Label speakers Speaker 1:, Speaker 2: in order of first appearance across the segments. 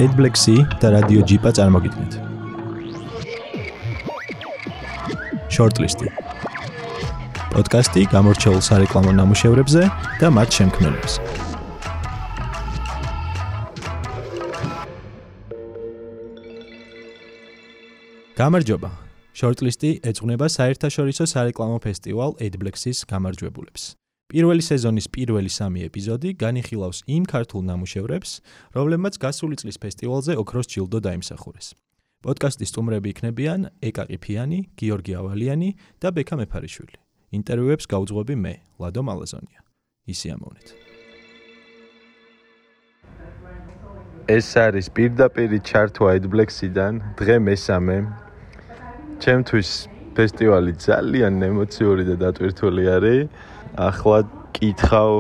Speaker 1: AdBlack-ი და რადიო ჯიპა წარმოგიდგენთ. Shortlist. პოდკასტი გამორჩეულ სარეკლამო ნამუშევრებზე და მათ შემქმნელებს. გამარჯობა. Shortlist-ი ეძღვნება საერთაშორისო სარეკლამო ფესტივალ AdBlack-ის გამარჯვებულებს. პირველი სეზონის პირველი 3 ეპიზოდი განიხილავს იმ ქართულ ნამუშევრებს, რომლებმაც გასული წლის ფესტივალზე ოქროს ჯილდო დაიმსახურეს. პოდკასტის სტუმრები იქნებიან ეკა ყიფიანი, გიორგი ავალიანი და ბექა მეფარიშვილი. ინტერვიუებს გავუძღვები მე, ლადო მალაზონია. ისიამოვნეთ.
Speaker 2: ეს არის პირდაპირი ჩართვა AdBlack-იდან, დღე მესამე. ჩემთვის ფესტივალი ძალიან ემოციური და დატვირთული არის. ახლა კითხავ,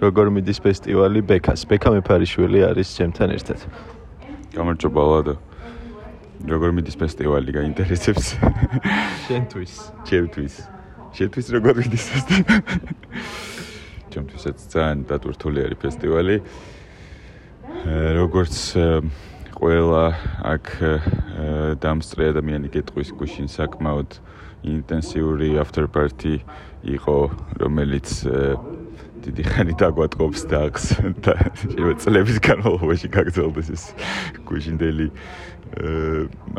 Speaker 2: როგორ მიდის ფესტივალი ბექას. ბექა მეფარიშვილი არის ჩემთან ერთად.
Speaker 3: გამარჯობა ლადო. როგორ მიდის ფესტივალი, გაინტერესებს?
Speaker 2: შენთვის.
Speaker 3: ჩემთვის როგორ მიდის ფესტივალი? ჩემთვისაც ძალიან დატვირთული არის ფესტივალი. როგორც ყველა აქ დამსწრე ადამიანი გეტყვის გუშინ საკმაოდ ინტენსიური after party იყო, რომელიც დიდი ხანი დაგვატყობს დაღს და წლების განმავლობაში გაგრძელდეს ეს გუშინდელი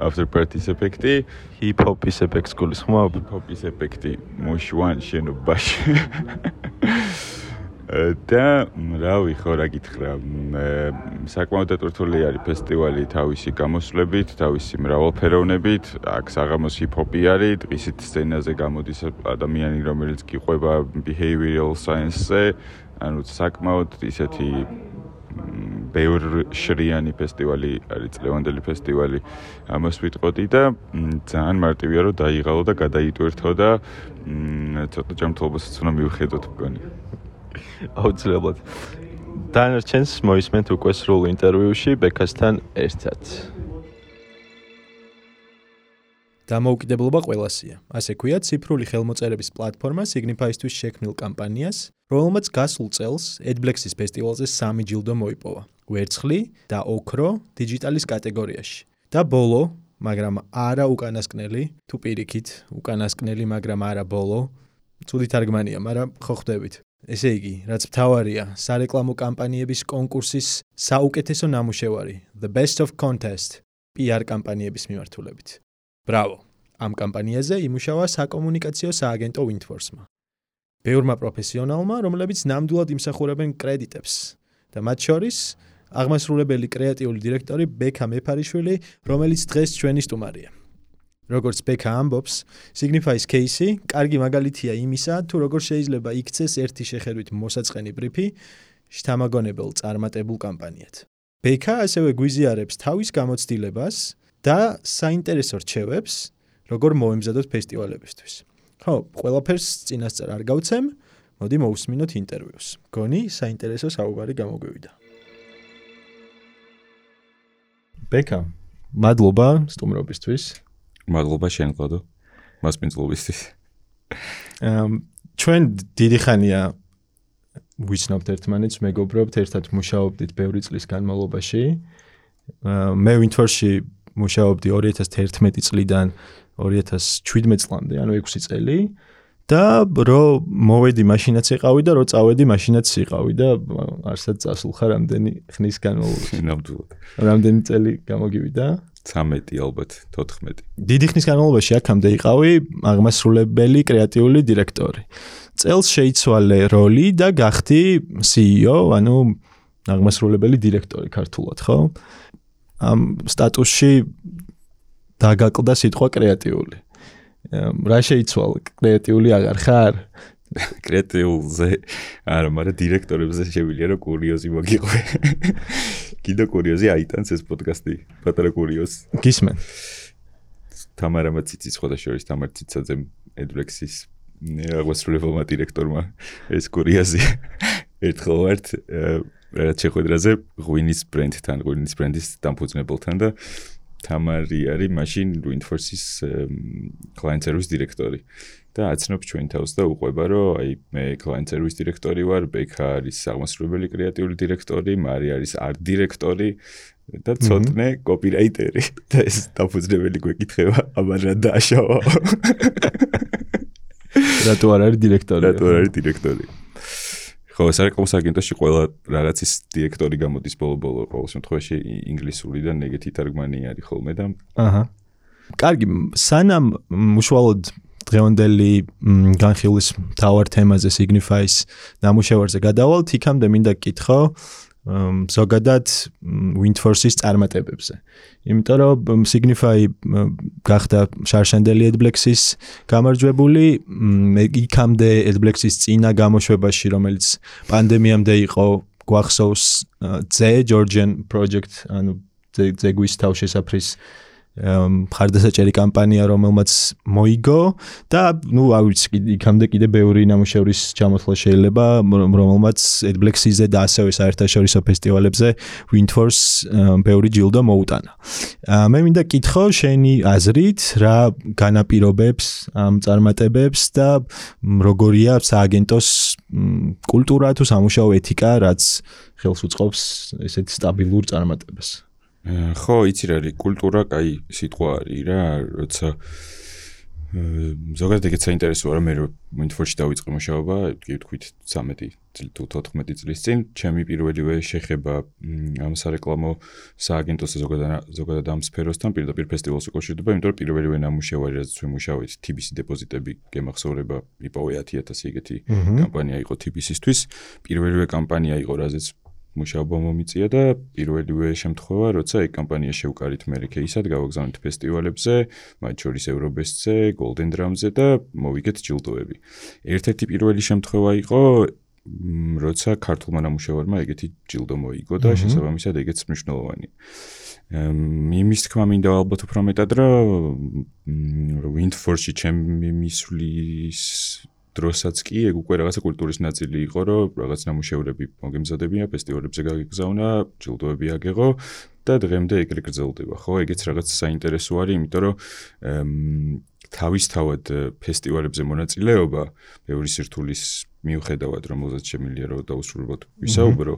Speaker 3: after party-ის ეფექტი,
Speaker 2: hip-hop-ის ეფექტს გულისხმობ?
Speaker 3: hip-hop-ის ეფექტი მოშوان შენობაში. და რავი, ხო რა გითხრა, საკმაოდ დატვირთული არის ფესტივალი თავისი გამოსვლებით, თავისი მრავალფეროვნებით. აქ საღამოს hip-hop-ი არის, დღისით სცენაზე გამოდის ადამიანი, რომელიც გიყვება behavioral science-ზე, ანუ საკმაოდ ისეთი ბევრშრიანი ფესტივალი არის, წლევანდელი ფესტივალი. ამას ვიტყოდი და ძალიან მარტივია რომ დაიღალო და გადაიტვირთო და ცოტა ჯანმრთელობასაც უნდა მივხედოთ მგონი.
Speaker 2: აუცილებლად. დანარჩენს მოისმენთ უკვე სრულ ინტერვიუში ბექასთან ერთად.
Speaker 1: დამოუკიდებლობა ყველასია. ასე ქვია ციფრული ხელმოწერების პლატფორმა Signify-ისთვის შექმნილ კამპანიას, რომელმაც გასულ წელს AdBlack-ის ფესტივალზე 3 ჯილდო მოიპოვა. ვერცხლი და ოქრო დიჯიტალის კატეგორიაში. და ბოლო, მაგრამ არა უკანასკნელი, თუ პირიქით, უკანასკნელი, მაგრამ არა ბოლო. ცუდი თარგმანია, მაგრამ ხო ხვდებით. ესე იგი, რაც მთავარია, სარეკლამო კამპანიების კონკურსის საუკეთესო ნამუშევარი, The Best of Contest, PR კამპანიების მიმართულებით. ბრავო! ამ კამპანიაზე იმუშავა საკომუნიკაციო სააგენტო Windforce-მა. ბევრმა პროფესიონალმა, რომლებიც ნამდვილად იმსახურებენ კრედიტებს და მათ შორის აღმასრულებელი კრეატიული დირექტორი ბექა მეფარიშვილი, რომელიც დღეს ჩვენი სტუმარია. როგორც ბექა ამბობს, Signify-ის кейსი კარგი მაგალითია იმისა, თუ როგორ შეიძლება იქცეს ერთი შეხედვით მოსაწყენი ბრიფი შთამაგონებელ წარმატებულ კამპანიად. ბექა ასევე გვიზიარებს თავის გამოცდილებას და საინტერესო რჩევებს, როგორ მოემზადოთ ფესტივალებისთვის. ხო, ყველაფერს წინასწარ არ გავცემ, მოდი მოусმინოთ ინტერვიუს. გონი საინტერესო საუბარი გამოგვივიდა. ბექა, მადლობა სტუმრობისთვის.
Speaker 3: მადლობა შენ ლადო. მასპინძლობისთვის.
Speaker 1: ჩვენ დიდი ხანია ვიცნობთ ერთმანეთს, მეგობრობთ, ერთად მუშაობდით ბევრი წლის განმავლობაში. მე Windforce-ში მუშაობდი 2011 წლიდან 2017 წლამდე, ანუ 6 წელი. და რო მოვედი მაშინაც იყავი და რო წავედი მაშინაც იყავი და არსად წასულხარ რამდენი ხნის განმავლობაში.
Speaker 3: ნამდვილად.
Speaker 1: რამდენი წელი გამოგივიდა?
Speaker 3: 13 ალბათ, 14.
Speaker 1: დიდი ხნის განმავლობაში აქამდე იყავი აღმასრულებელი კრეატიული დირექტორი. წელს შეიცვალე როლი და გახდი CEO, ანუ აღმასრულებელი დირექტორი ქართულად, ხო? ამ სტატუსში დაგაკლდა სიტყვა კრეატიული. რა შეიცვალა? კრეატიული აღარ ხარ?
Speaker 3: კრეატიულზე არა, მაგრამ დირექტორებზე შევილია რომ კურიოზი მოგიყვე. კიდე კურიოზი აიტანს ეს პოდკასტი, პატარა კურიოზი.
Speaker 1: გისმენ.
Speaker 3: თამარა მაციცი შორის თამარ ციცაძემ AdBlack-ის აღმასრულებელმა დირექტორმა ეს კურიოზი ერთხელ ვართ რაც შეხვედრაზე ღვინის ბრენდთან, ღვინის ბრენდის დამფუძნებელთან და თამარი არის მაშინ Windforce-ის client service დირექტორი. და აცნობს ჩვენ თავს და უყვება რომ აი მე client service დირექტორი ვარ, ბექა არის აღმასრულებელი კრეატიული დირექტორი, მარი არის art დირექტორი და ცოტნე კოპირაიტერი და ეს დაფუძნებელი გვეკითხება, აბა რა დააშავა.
Speaker 1: რატო არ არის დირექტორი?
Speaker 3: ხო, სარეკლამო აგენტოში ყველა რაღაცის დირექტორი გამოდის ბოლო-ბოლო ყოველ შემთხვევაში ინგლისურიდან ეგეთი თარგმანი არის ხოლმე და
Speaker 1: აჰა. კარგი, სანამ უშუალოდ დღევანდელი განხილვის მთავარ თემაზე Signify-ის ნამუშევარზე გადავალთ, იქამდე მინდა გკითხო ზოგადად Windforce-ის წარმატებებზე. იმიტომ რომ Signify გახდა შარშანდელი Adblex-ის გამარჯვებული, იქამდე Adblex-ის წინა გამოშვებაში, რომელიც პანდემიამდე იყო, გვახსოვს Georgian Project, ანუ ზეგვის თავშესაფრის მხარდასაჭერი კამპანია, რომელმაც მოიგო და არ ვიცი, იქამდე კიდე ბევრი ნამუშევრის ჩამოთვლა შეიძლება, რომელმაც Adblex-ზე და ასევე საერთაშორისო ფესტივალებზე Windforce ბევრი ჯილდო მოუტანა. მე მინდა გკითხო შენი აზრით, რა განაპირობებს ამ წარმატებებს და როგორია სააგენტოს კულტურა თუ სამუშაო ეთიკა, რაც ხელს უწყობს ესეთ სტაბილურ წარმატებას.
Speaker 3: ხო, იცი რა არის კულტურა, კაი სიტყვა არის რა, როცა ზოგადად ეგეც საინტერესოა, რომ მე Windforce-ში დავიწყე მუშაობა, კი ვთქვით 13 წლის წინ, ჩემი პირველივე შეხება ამ სარეკლამო სააგენტოს ზოგადად ამ სფეროსთან პირდაპირ ფესტივალს უკავშირდება, იმიტომ რომ პირველივე ნამუშევარი, რაც ვიმუშავეთ, TBC დეპოზიტები გემახსოვრება, იპოვე 10,000 ეგეთი კამპანია იყო TBC-ისთვის, პირველივე კამპანია იყო, რაზეც მუშაობა მომიწია და პირველივე შემთხვევა, როცა ეგ კამპანია შევკარით მე კეისად, გავაგზავნით ფესტივალებზე, მათ შორის Eurobest-ზე, Golden Drum-ზე და მოვიგეთ ჯილდოები. ერთ-ერთი პირველი შემთხვევა იყო, როცა ქართულმა ნამუშევარმა ეგეთი ჯილდო მოიგო და შესაბამისად ეგეც მნიშვნელოვანია. იმის თქმა მინდა ალბათ უფრო მეტად, რომ Windforce-ში ჩემი მისვლის დროსაც კი ეგ უკვე რაღაცა კულტურის ნაწილი იყო, რომ რაღაც ნამუშევრები მოგემზადებიან, ფესტივალებზე გაგიგზავნა, ჯილდოები აგეღო და დღემდე ეგრე გრძელდება, ხო? ეგეც რაღაც საინტერესო არის, იმიტომ რომ თავისთავად ფესტივალებზე მონაწილეობა ბევრი სირთულის მიუხედავად, რომელზეც შემიძლია რომ დაუსრულებლად ვისაუბრო,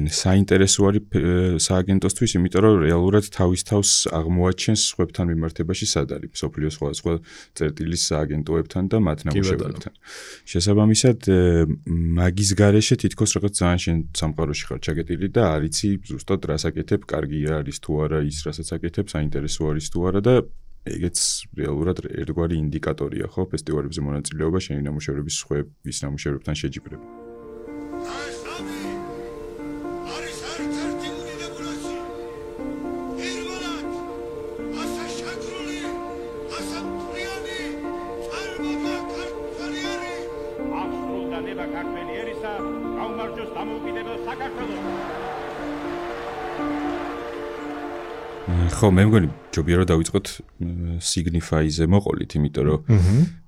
Speaker 3: საინტერესო არის სააგენტოსთვის, იმიტომ რომ რეალურად თავის თავს აღმოაჩენს სხვებთან მიმართებაში სად არის, მსოფლიოს სხვადასხვა წერტილის სააგენტოებთან და მათ ნამუშევრებთან. შესაბამისად, მაგის გარეშე თითქოს რაღაც ძალიან შენ სამყაროში ხარ ჩაგეტილი და არ იცი ზუსტად რას აკეთებ, კარგი არის თუ არა ის, რასაც აკეთებ, საინტერესო არის თუ არა და ეგეც რეალურად ერთგვარი ინდიკატორია, ხო, ფესტივალებზე მონაწილეობა, შენი ნამუშევრების სხვების ნამუშევრებთან შეჯიბრება. ხო, მე მგონი ჯობია რომ დავიწყოთ Signify-ზე მოყოლით, იმიტომ რომ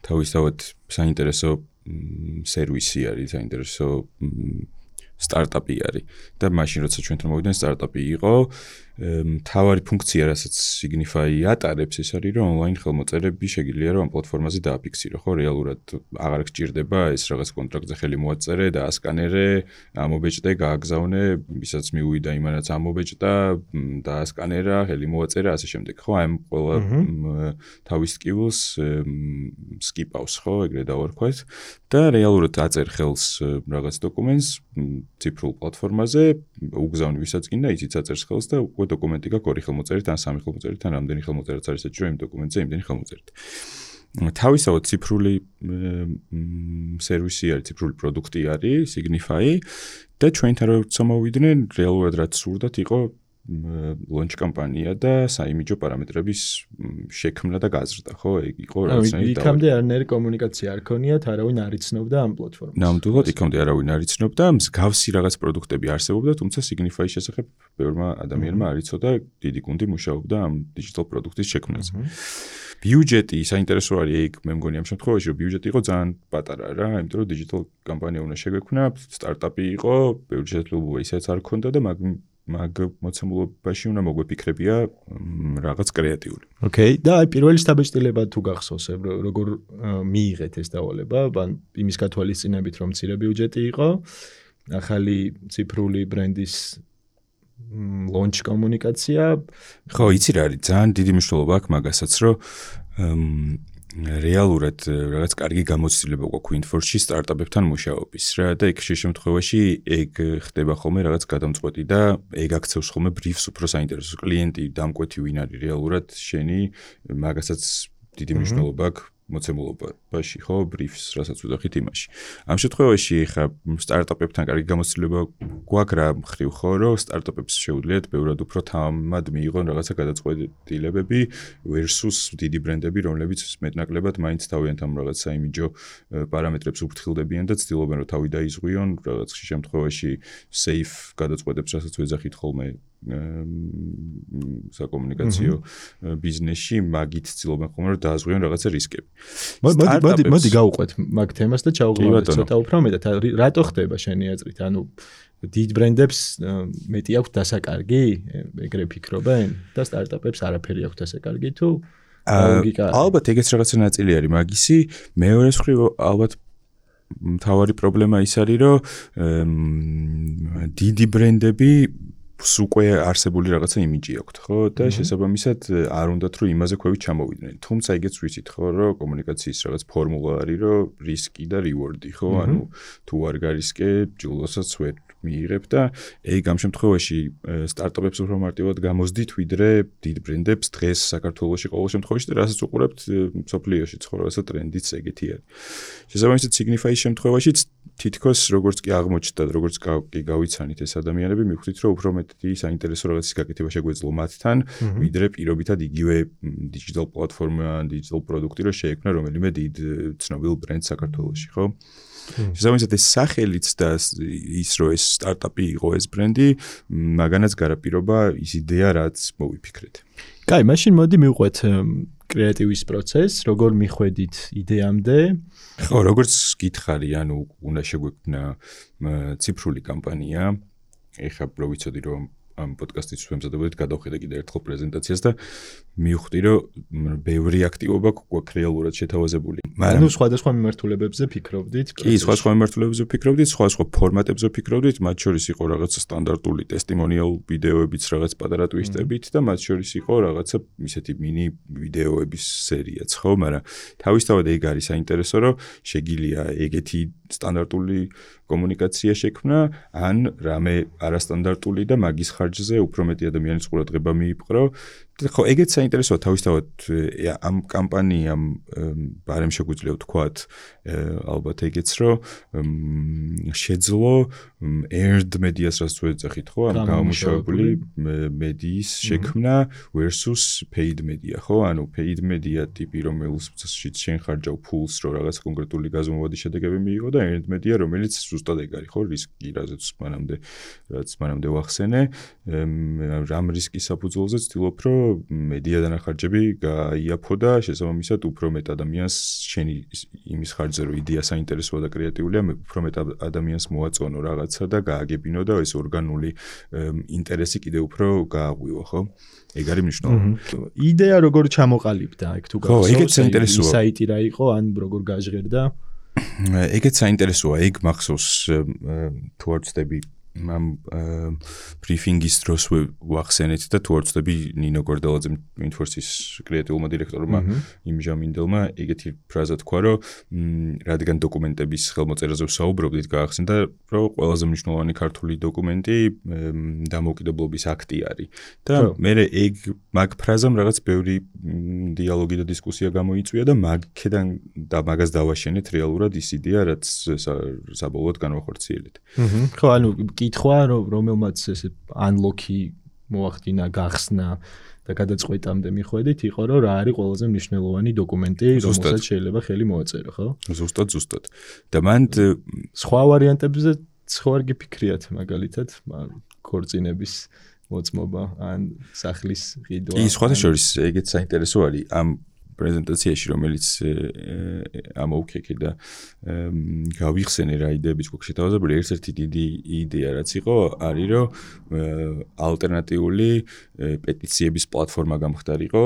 Speaker 3: თავისთავად საინტერესო სერვისი არის, საინტერესო სტარტაპი არის და მაშინ როცა ჩვენთან მოვიდნენ სტარტაპი იყო, მთავარი ფუნქცია, რასაც Signify ატარებს, ეს არის, რომ ონლაინ ხელმოწერები შეგიძლია რომ ამ პლატფორმაზე დააფიქსირო, ხო, რეალურად აღარ გჭირდება ეს რაღაც კონტრაქტზე ხელი მოაწერე და ასკანერე, ამობეჭდე, გააგზავნე, ვისაც მიუვიდა იმანაც ამობეჭდა, დაასკანერა, ხელი მოაწერა, ასე შემდეგ, ხო, აი ყველა თავის სკილს სკიპავს, ხო, ეგრე დავარქვათ და რეალურად აწერ ხელს რაღაც დოკუმენტს ციფრულ პლატფორმაზე, უგზავნი ვისაც გინდა, იცით აწერს ხელს და უკვე დოკუმენტი გაქვს ორი ხელმოწერით, ან სამი ხელმოწერით, ან რამდენი ხელმოწერაც არის საჭირო იმ დოკუმენტზე, იმდენი ხელმოწერით. თავისთავად ციფრული სერვისი არის, ციფრული პროდუქტი არის, Signify და ჩვენთან როცა მოვიდნენ, რეალურად რაც სურდათ იყო launch კამპანია და საიმიჯო პარამეტრების შექმნა და გაზრდა, ხო? ეგ იყო რაღაცნაირი და
Speaker 1: იქამდე არანაირი კომუნიკაცია არ ქონიათ, არავინ არ იცნობდა ამ პლატფორმას.
Speaker 3: ნამდვილად იქამდე არავინ არ იცნობდა, მსგავსი რაღაც პროდუქტები არსებობდა, თუმცა Signify-ის შესახებ ბევრმა ადამიანმა არ იცოდა, დიდი გუნდი მუშაობდა ამ digital პროდუქტის შექმნაზე. ბიუჯეტი საინტერესო არის, ეგ მე მგონი ამ შემთხვევაში, რომ ბიუჯეტი იყო ძალიან პატარა რა, იმიტომ რომ digital კამპანია უნდა შეგვექმნა, სტარტაპი იყო, ბევრი შესაძლებლობა ისეც არ ქონდა და მაგ მოცემულობაში უნდა მოგვეფიქრებია რაღაც კრეატიული.
Speaker 1: ოკეი, და აი პირველი შთაბეჭდილება თუ გახსოვს, როგორ მიიღეთ ეს დავალება, ან იმის გათვალისწინებით, რომ მცირე ბიუჯეტი იყო, ახალი ციფრული ბრენდის launch კომუნიკაცია.
Speaker 3: ხო, იცი რა არის, ძალიან დიდი მნიშვნელობა აქვს მაგასაც, რომ რეალურად რაღაც კარგი გამოცდილება გვაქვს Windforce-ში სტარტაპებთან მუშაობის რა და იქ შემთხვევაში ეგ ხდება ხოლმე რაღაც გადამწყვეტი და ეგ აქცევს ხოლმე briefs უფრო საინტერესო კლიენტი დამკვეთი ვინ არის რეალურად შენი მაგასაც დიდი მნიშვნელობა აქვს მოცემულობაში ხო briefs რასაც ვუძახით იმაში. ამ შემთხვევაში ხა სტარტაპებთან კარგი გამოცდილება გვაქვს რა მხრივ ხო რომ სტარტაპებს შეუძლიათ ბევრად უფრო თამად მიიღონ რაღაცა გადაწყვეტილებები versus დიდი ბრენდები რომლებიც მეტნაკლებად მაინც თავიანთ ამ რაღაც საიმიჯო პარამეტრებს უფრთხილდებიან და ცდილობენ რომ თავი დაიზღვიონ რაღაც შემთხვევაში safe გადაწყვეტებს რასაც ვეძახით ხოლმე საკომუნიკაციო ბიზნესში მაგით ცდილობენ ხოლმე რომ დააზღვიონ რაღაცა რისკები.
Speaker 1: მოდი გავუყვეთ მაგ თემას და ჩავღმავდეთ ცოტა უფრო მეტად. რატო ხდება შენი აზრით? ანუ დიდ ბრენდებს მეტი აქვს დასაკარგი, ეგრე ფიქრობენ და სტარტაპებს არაფერი აქვს დასაკარგი თუ ლოგიკა?
Speaker 3: ალბათ ეგეც რაღაცა ნაწილი არის მაგისი. მეორე მხრივ ალბათ მთავარი პრობლემა ის არის რომ დიდი ბრენდები უკვე არსებული რაღაცა იმიჯი აქვთ, ხო? და შესაბამისად არ უნდათ რომ იმაზე ქვევით ჩამოვიდნენ. თუმცა ეგეც ვიცით, ხო, რომ კომუნიკაციის რაღაც ფორმულა არის, რომ რისკი და რივორდი, ხო? ანუ თუ არ გარისკე, ჯილდოსაც ვერ მიიღებ და ეგ ამ შემთხვევაში სტარტაპებს უფრო მარტივად გამოსდით, ვიდრე დიდ ბრენდებს დღეს საქართველოში ყოველ შემთხვევაში და რასაც უყურებთ სოფლიოში ცხოვრებასა ტრენდიც ეგეთი არის. შესაბამისად Signify-ის შემთხვევაშიც თითქოს როგორც კი აღმოჩნდა, როგორც კი გავიცანით ეს ადამიანები, მიხვდით რომ უფრო მეტი საინტერესო რაღაცის გაკეთება შეგვეძლო მათთან, ვიდრე პირობითად იგივე digital platform-ა, digital პროდუქტი რო შეექმნა რომელიმე დიდ ცნობილ ბრენდს საქართველოში, ხო? შესაბამისად ეს სახელიც და ის რომ ეს სტარტაპი იყო ეს ბრენდი, მაგანაც გარაპირობა ის იდეა რაც მოვიფიქრეთ.
Speaker 1: კაი, მაშინ მოდი მივყვეთ კრეატივის პროცესს, როგორ მიხვედით იდეამდე?
Speaker 3: ხო, როგორც გითხარი, ანუ უნდა შეგვექმნა ციფრული კამპანია. ეხლა რო ვიცოდი რომ ამ პოდკასტის ვემზადებოდით გადავხედე კიდე ერთხელ პრეზენტაციას და მივხვდი რომ ბევრი აქტივობა გვაქვს რეალურად შეთავაზებული.
Speaker 1: ანუ სხვადასხვა მიმართულებებზე ფიქრობდით?
Speaker 3: კი, სხვადასხვა მიმართულებებზე ფიქრობდით, სხვადასხვა ფორმატებზე ფიქრობდით, მათ შორის იყო რაღაცა სტანდარტული ტესტიმონიალ ვიდეოებიც რაღაც პატარა ტვისტებით და მათ შორის იყო რაღაცა ისეთი მინი ვიდეოების სერიაც, ხო, მაგრამ თავისთავად ეგ არის საინტერესო, რომ შეგიძლია ეგეთი სტანდარტული კომუნიკაცია შექმნა, ან რამე არასტანდარტული და მაგის ხარჯზე უფრო მეტი ადამიანის ყურადღება მიიპყრო. ხო, ეგეც საინტერესოა თავისთავად ამ კამპანიამ ბარემ შეგვიძლია ვთქვათ, ალბათ ეგეც რომ შეძლო earned media-ს რაც ვეძახით, ხო, ამ გამომუშავებული მედიის შექმნა versus paid media, ხო? ანუ paid media ტიპი რომელშიც შენ ხარჯავ ფულს, რომ რაღაც კონკრეტული გაზომვადი შედეგები მიიღო და earned media რომელიც ზუსტად ეგ არის, ხო? რისკი რაც მანამდე ვახსენე, რამ რისკის საფუძველზე ცდილობ რომ მედია დანახარჯები გაიაფო და შესაბამისად უფრო მეტ ადამიანს შენი იმის ხარჯზე რომ იდეა საინტერესოა და კრეატიულია, უფრო მეტ ადამიანს მოაწონო რაღაცა და გააგებინო და ეს ორგანული ინტერესი კიდე უფრო გააღვიო, ხო? ეგ არის მნიშვნელოვანი.
Speaker 1: იდეა როგორ ჩამოყალიბდა, ეგ თუ
Speaker 3: გახსოვს? ხო, ეგეც საინტერესოა.
Speaker 1: საიტი რა იყო, ან როგორ გაჟღერდა?
Speaker 3: ეგეც საინტერესოა, ეგ მახსოვს თუ არ ვცდები ამ ბრიფინგის დროს ვახსენეთ და თუ არ ვცდები ნინო გორდელაძემ Windforce-ის კრეატიულმა დირექტორმა იმჟამინდელმა ეგეთი ფრაზა თქვა, რომ რადგან დოკუმენტების ხელმოწერაზე ვსაუბრობდით, გაახსენდა, რომ ყველაზე მნიშვნელოვანი ქართული დოკუმენტი დამოუკიდებლობის აქტი არის. და მე ეგ მაგ ფრაზამ რაღაც ბევრი დიალოგი და დისკუსია გამოიწვია და მაგედან და მაგას დავაშენეთ რეალურად ის იდეა, რაც საბოლოოდ განვახორციელეთ.
Speaker 1: ხო, ანუ კითხვა, რომელმაც ესე unlock-ი მოახდინა, გახსნა და გადაწყვეტამდე მიხვედით, იყო რომ რა არის ყველაზე მნიშვნელოვანი დოკუმენტი, რომელსაც შეიძლება ხელი მოაწერო, ხო?
Speaker 3: ზუსტად. და მან
Speaker 1: სხვა ვარიანტებზე სხვა არ გიფიქრიათ, მაგალითად, ქორწინების მოწმობა ან სახლის ყიდვა.
Speaker 3: კი, სხვათა შორის ეგეც საინტერესო არის. ამ პრეზენტაციაში, რომელიც ამოვქეკე და გავიხსენე რა იდეებიც გვაქვს შეთავაზებული, ერთ-ერთი დიდი იდეა რაც იყო, არის რომ ალტერნატიული პეტიციების პლატფორმა გამხდარიყო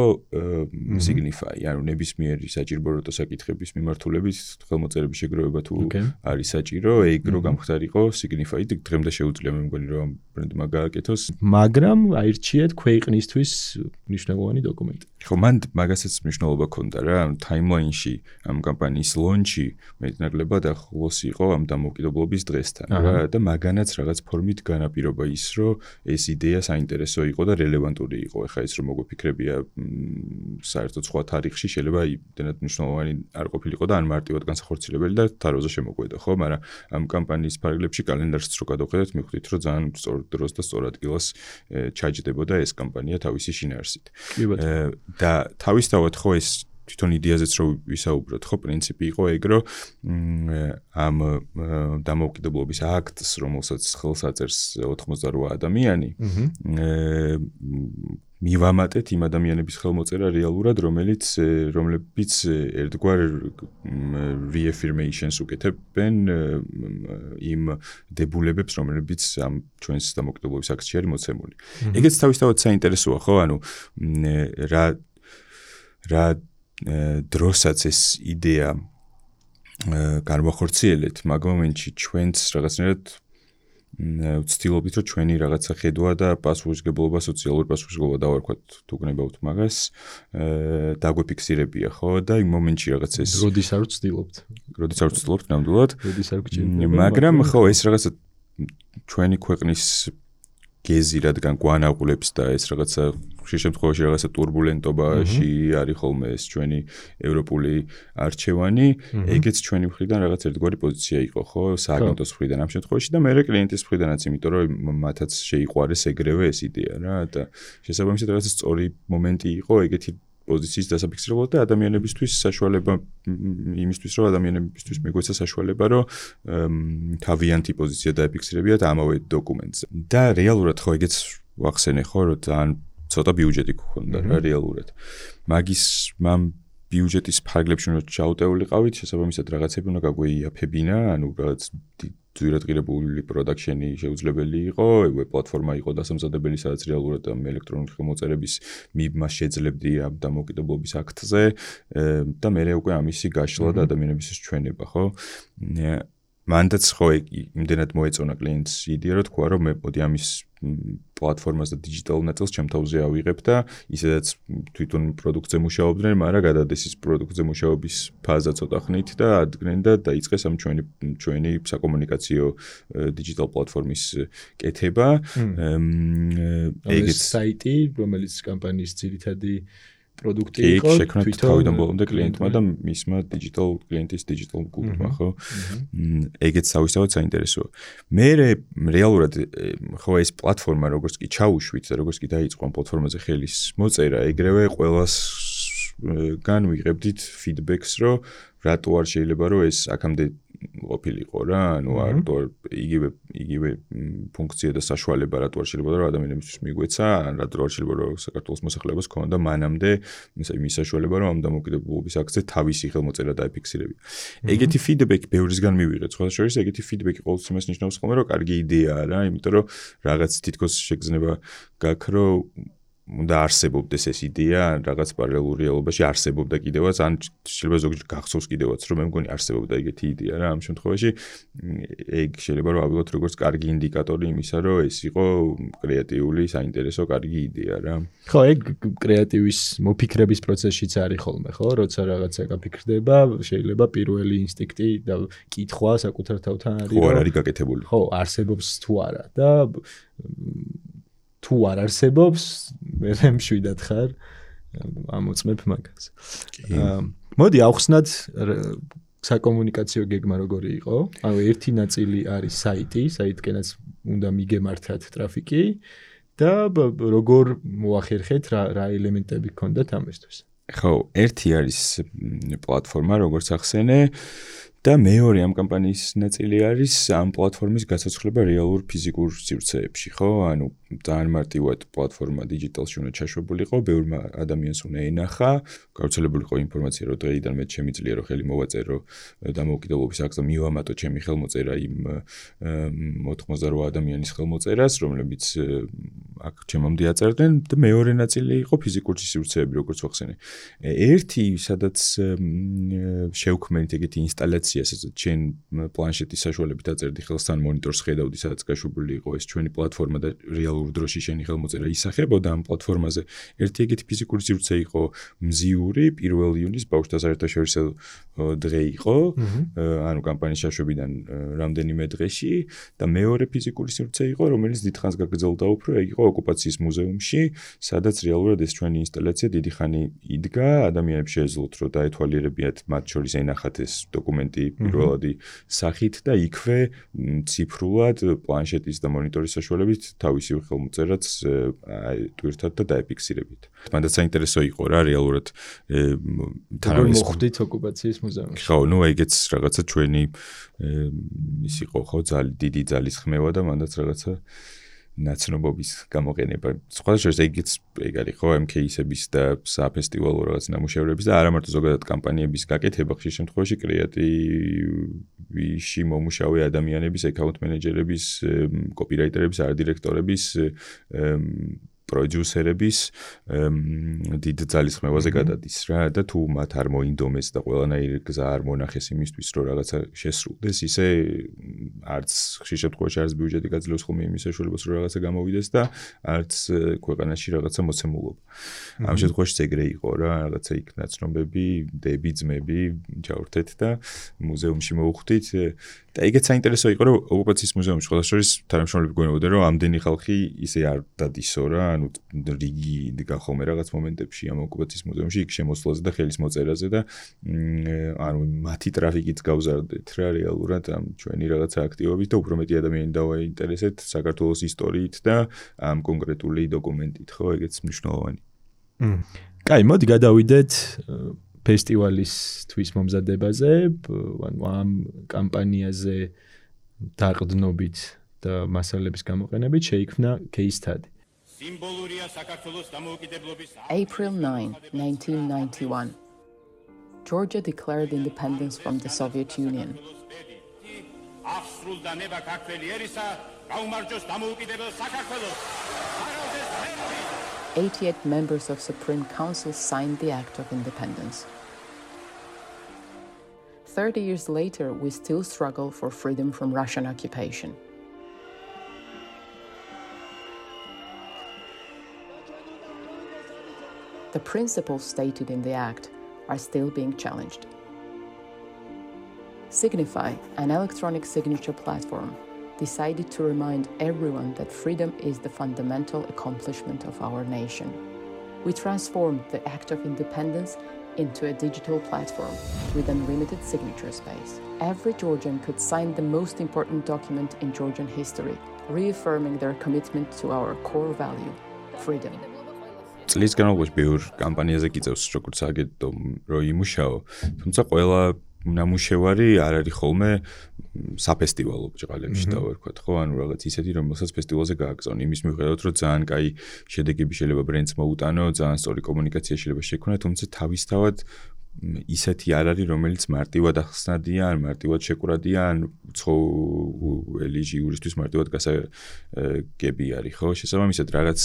Speaker 3: Signify, ანუ ნებისმიერი საჭიროებათა საკითხების მიმართულებით ხელმოწერების შეგროვება თუ არის საჭირო, ეგ რო გამხდარიყო Signify და დღემდე შეუძლია მე მგონი რომ ბრენდმა გააკეთოს,
Speaker 1: მაგრამ აირჩიეთ ქვეყნისთვის მნიშვნელოვანი დოკუმენტი.
Speaker 3: ხო, მან მაგასაც მნიშვნელობა ჰქონდა რა, ტაიმლაინში ამ კამპანიის ლონჩი მეტნაკლებად ახლოს იყო ამ დამოუკიდებლობის დღესთან რა და მაგანაც რაღაც ფორმით განაპირობა ის, რომ ეს იდეა საინტერესო იყო და რელევანტური იყო. ეხლა ის რომ მოგვიფიქრებია საერთოდ სხვა თარიღში შეიძლება იმდენად მნიშვნელოვანი არ ყოფილიყო და ან მარტივად განსახორციელებელი და თაროზე შემოგვედა, ხო, მაგრამ ამ კამპანიის ფარგლებში კალენდარს რო გადავხედეთ, მიხვდით რომ ძალიან სწორ დროს და სწორ ადგილას ჩაჯდებოდა ეს კამპანია თავისი შინაარსით. და თავისთავად ხო ეს თვითონ იდეაზეც რო ვისაუბროთ, ხო, პრინციპი იყო ეგ, რომ ამ დამოუკიდებლობის აქტს, რომელსაც ხელს აწერს 88 ადამიანი, მივამატეთ იმ ადამიანების ხელმოწერა რეალურად, რომლებიც ერთგვარ reaffirmations უკეთებენ იმ დებულებებს, რომლებიც ამ ჩვენს დამოუკიდებლობის აქტში არის მოცემული. ეგეც თავისთავად საინტერესოა, ხო, ანუ რა დროსაც ეს იდეა განვახორციელეთ, მაგ მომენტში ჩვენც რაღაცნაირად ვცდილობთ, რომ ჩვენი რაღაცა ხედვა და პასუხისმგებლობა, სოციალური პასუხისმგებლობა დავარქვათ, თუ გნებავთ მაგას, დაგვეფიქსირებია, ხო, და იმ მომენტში რაღაც ეს
Speaker 1: როდის არ ვცდილობთ.
Speaker 3: როდის არ ვცდილობთ, ნამდვილად.
Speaker 1: როდის არ გჭირდება.
Speaker 3: მაგრამ ხო, ეს რაღაცა ჩვენი ქვეყნის გეზი რადგან გვანაღვლებს და ეს რაღაცა შემთხვევაში რაღაცა турბულენტობაში არის ხოლმე ეს ჩვენი ევროპული არჩევანი, ეგეც ჩვენი მხრიდან რაღაც ერთგვარი პოზიცია იყო, ხო, სააგენტოს მხრიდან ამ შემთხვევაში და მე კლიენტის მხრიდანაც, იმიტომ რომ მათაც შეიყვარეს ეგრევე ეს იდეა რა და შესაბამისად რაღაცა სწორი მომენტი იყო ეგეთი პოზიციის დასაფიქსირებლად და ადამიანებისთვის საშუალება იმისთვის, რომ ადამიანებისთვის მიგვეცა საშუალება, რომ თავიანთი პოზიცია დაეფიქსირებიათ ამავე დოკუმენტზე. და რეალურად ხო ეგეც ვახსენე ხო, რომ ძალიან ცოტა ბიუჯეტი გქონდა რა რეალურად. მაგის ბიუჯეტის ფარგლებში უნდა ჩაუტეულიყავით, შესაბამისად რაღაცები უნდა გაგვეიაფებინა, ანუ რაღაც ძვირადღირებული პროდაქშენი შეუძლებელი იყო, ეგ პლატფორმა იყო დასამზადებელი, სადაც რეალურად ამ ელექტრონული ხელმოწერების მიბმას შეძლებდი ამ დამოუკიდებლობის აქტზე და მე უკვე ამისი გაშლა და ადამიანებისთვის ჩვენება, ხო? მანდაც ხო იმდენად მოეწონა კლიენტს იდეა, რომ თქვა, რომ მე მოდი ამის პლატფორმას და დიჯიტალ ნაწილს ჩემ თავზე ავიღებ და ისედაც თვითონ პროდუქტზე მუშაობდნენ, მაგრამ გადადეს ის პროდუქტზე მუშაობის ფაზა ცოტა ხნით და ადგენენ და დაიწყეს ამ ჩვენი საკომუნიკაციო დიჯიტალ პლატფორმის კეთება.
Speaker 1: ეგეც საიტი, რომელიც კამპანიის ძირითადი პროდუქტი იყო,
Speaker 3: შექმნით თავიდან ბოლომდე კლიენტმა და მისმა კლიენტის დიჯიტალ გუნდმა, ხო? ეგეც თავისთავად საინტერესოა. მე რეალურად ხო ეს პლატფორმა როგორც კი ჩაუშვით და როგორც კი დაიწყო ამ პლატფორმაზე ხელის მოწერა, ეგრევე ყველას განვიღებდით ფიდბექს, რომ რატო არ შეიძლება რომ ეს აქამდე ყოფილიყო რა, ანუ რატო იგივე ფუნქცია და საშუალება რატო არ შეიძლება რომ ადამიანებისთვის მიგვეცა, რატო არ შეიძლება რომ საქართველოს მოსახლეობას ქონდა მანამდე იმის საშუალება რომ ამ დამოუკიდებლობის აქტზე თავისი ხელმოწერა დაეფიქსირებია. ეგეთი ფიდბექი ბევრისგან მივიღეთ, სხვა შორის ეგეთი ფიდბექი ყოველთვის იმას ნიშნავს ხოლმე რომ კარგი იდეაა რა, იმიტომ რომ რაღაც თითქოს შეგრძნება გაქვს რომ უნდა არსებობდეს ეს იდეა, რაღაც პარალელურ რეალობაში არსებობდა კიდევაც, ან შეიძლება ზოგჯერ გახსოვს კიდევაც, რომ მე მგონი არსებობდა ეგეთი იდეა რა, ამ შემთხვევაში ეგ შეიძლება რომ ავიღოთ როგორც კარგი ინდიკატორი იმისა, რომ ეს იყო კრეატიული, საინტერესო, კარგი იდეა რა.
Speaker 1: ხო, ეგ კრეატივის მოფიქრების პროცესშიც არის ხოლმე, ხო, როცა რაღაცა გაფიქრდება, შეიძლება პირველი ინსტინქტი და კითხვა საკუთარ თავთან არის,
Speaker 3: ხო, არ არის გაკეთებული.
Speaker 1: ხო, არსებობს თუ არა და თუ არ არსებობს, მე მშვიდად ხარ, ამოწმებ მაგას. მოდი ავხსნათ საკომუნიკაციო გეგმა როგორი იყო. ანუ ერთი ნაწილი არის საიტი, საიტკენაც უნდა მიგემართათ ტრაფიკი და როგორ მოახერხეთ, რა ელემენტები გქონდათ ამისთვის.
Speaker 3: ხო, ერთი არის პლატფორმა, როგორც ახსენე და მეორე ამ კამპანიის ნაწილი არის ამ პლატფორმის გასაცვლება რეალურ ფიზიკურ სივრცეებში, ხო? ანუ ძალიან მარტივად პლატფორმა დიჯიტალში უნდა ჩაშვებულიყო, ბევრმა ადამიანს უნდა ენახა, გავრცელებულიყო ინფორმაცია, რომ დღეიდან მე შემიძლია რომ ხელი მოვაწერო დამოუკიდებლობის აქტზე მივამატო ჩემი ხელმოწერა იმ 88 ადამიანის ხელმოწერას, რომლებიც აქ ჩემამდე აწერდნენ და მეორე ნაწილი იყო ფიზიკური სივრცეები, როგორც ვახსენე. ერთი, სადაც შევქმნით ეგეთი ინსტალაცია, სადაც ჩვენ პლანშეტის საშუალებით აწერდი ხელს თან მონიტორს ხედავდი, სადაც გაშვებული იყო ეს ჩვენი პლატფორმა და რეალურ დროში შენი ხელმოწერა ისახებოდა ამ პლატფორმაზე. ერთი ეგეთი ფიზიკური სივრცე იყო მზიური 1 იუნის ბავშვთა საერთაშორისო დღე იყო, ანუ კამპანიის შეშვებიდან რამდენიმე დღეში და მეორე ფიზიკური სივრცე იყო, რომელიც დიდხანს გაგრძელდა უფრო, ეგ იყო ოკუპაციის მუზეუმში, სადაც რეალურად ეს ჩვენი ინსტალაცია დიდი ხანი იდგა, ადამიანებს შეეძლოთ რომ დაეთვალიერებიათ მათ შორის ენახათ ეს დოკუმენტი პირველადი სახით და იქვე ციფრულად პლანშეტის და მონიტორის საშუალებით თავისი ხელმოწერაც ტვირთად და დაეფიქსირებით. მანდაც საინტერესო იყო რა რეალურად
Speaker 1: თანავე მოხვდით ოკუპაციის მუზეუმში.
Speaker 3: ხო, ნუ ეგეც რაღაცა ჩვენი ის იყო ხო დიდი ძალის ხმევა და მანდაც რაღაცა ნაცნობობის გამოყენება. სხვა შეიძლება ეგეც ეგ არის ხო ამ кейსების და საფესტივალო რაღაც ნამუშევრების და არა მარტო ზოგადად კამპანიების გაკეთება, ხშირ შემთხვევაში კრეატივში მომუშავე ადამიანების, აკაუნტ მენეჯერების, კოპირაიტერების, არდირექტორების პროდიუსერების დიდ ძალის ხმევაზე გადადის რა და თუ მათ არ მოინდომეს და ყველანაირი გზა არ მონახეს იმისთვის რომ რაღაცა შესრულდეს ისე არც ხშირ შემთხვევაში არც ბიუჯეტი გაძლევს ხოლმე იმის საშუალებას რომ რაღაცა გამოვიდეს და არც ქვეყანაში რაღაცა მოცემულობა. ამ შემთხვევაში ეგრე იყო რა რაღაცა იქ ნაცნობები, დები, ძმები ჩავრთეთ და მუზეუმში მოვხვდით და ეგეც საინტერესო იყო რომ ოკუპაციის მუზეუმში სხვა შორის თანამშრომლები გვენებოდა რომ ამდენი ხალხი ისე არ დადისო რა ანუ რიგი იდგა ხოლმე რაღაც მომენტებში ამ ოკუპაციის მუზეუმში იქ შემოსვლაზე და ხელის მოწერაზე და ანუ მათი ტრაფიკიც გავზარდეთ რა რეალურად ამ ჩვენი რაღაცა აქტივობით და უფრო მეტი ადამიანი დავაინტერესეთ საქართველოს ისტორიით და ამ კონკრეტული დოკუმენტით ხო ეგეც მნიშვნელოვანი.
Speaker 1: კაი, მოდი გადავიდეთ ფესტივალის თვის მომზადებაზე, ანუ ამ კამპანიაზე დაყრდნობით და მასალების გამოყენებით შეიქმნა case study.
Speaker 4: April 9, 1991. Georgia declared independence from the Soviet Union. 88 members of Supreme Council signed the Act of Independence. 30 years later, we still struggle for freedom from Russian occupation. The principles stated in the Act are still being challenged. Signify, an electronic signature platform, decided to remind everyone that freedom is the fundamental accomplishment of our nation. We transformed the Act of Independence into a digital platform with unlimited signature space. Every Georgian could sign the most important document in Georgian history, reaffirming their commitment to our core value, freedom.
Speaker 3: წლის განმავლობაში ბევრ კამპანიაზე გიწევს როგორც აგეთო რომ იმუშაო, თუმცა ყველა ნამუშევარი არ არის ხოლმე საფესტივალო ბჭყალებში დავერქვათ, ხო? ანუ რაღაც ისეთი, რომელსაც ფესტივალზე გააგზავნ. იმის მიუხედავად, რომ ძალიან კაი შედეგები შეიძლება ბრენდს მოუტანო, ძალიან სწორი კომუნიკაცია შეიძლება შექმნა, თუმცა თავისთავად ისეთი არ არის, რომელიც მარტივად ახსნადია, ან მარტივად შეკვრადია, ან უცხოელი ჟიურისთვის მარტივად გასაგები არის, ხო? შესაბამისად, რაღაც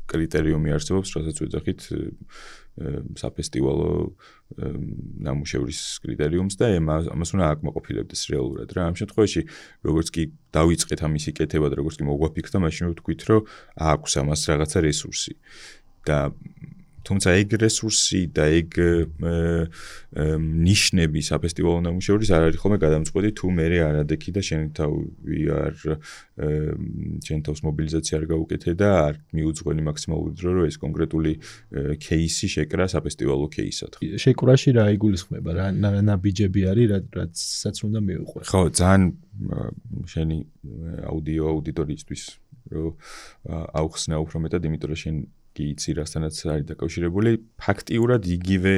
Speaker 3: კრიტერიუმი არსებობს, რასაც ვეძახით საფესტივალო ნამუშევრის კრიტერიუმს და ამას უნდა აკმაყოფილებდეს რეალურად რა. ამ შემთხვევაში, როგორც კი დავიწყეთ ამისი კეთება და როგორც კი მოგვაფიქრდა, მაშინ ვთქვით, რომ აქვს ამას რაღაცა რესურსი. და თუმცა ეგ რესურსი და ეგ ნიშნები საფესტივალო ნამუშევრის არ არის ხოლმე გადამწყვეტი თუ მე არადექი და შენ თავი არ შენ თავს მობილიზაცია არ გაუკეთე და არ მიუძღვენი მაქსიმალური დრო რომ ეს კონკრეტული кейსი შეკრა საფესტივალო кейსად.
Speaker 1: შეკრაში რა იგულისხმება? რა ნაბიჯები არის, რაცაც უნდა მივიყვე?
Speaker 3: ხო, ძალიან შენი აუდიო აუდიტორიისთვის რომ აუხსნა უფრო მეტად, იმიტომ რომ შენ კი იცი რასთანაც არის დაკავშირებული, ფაქტიურად იგივე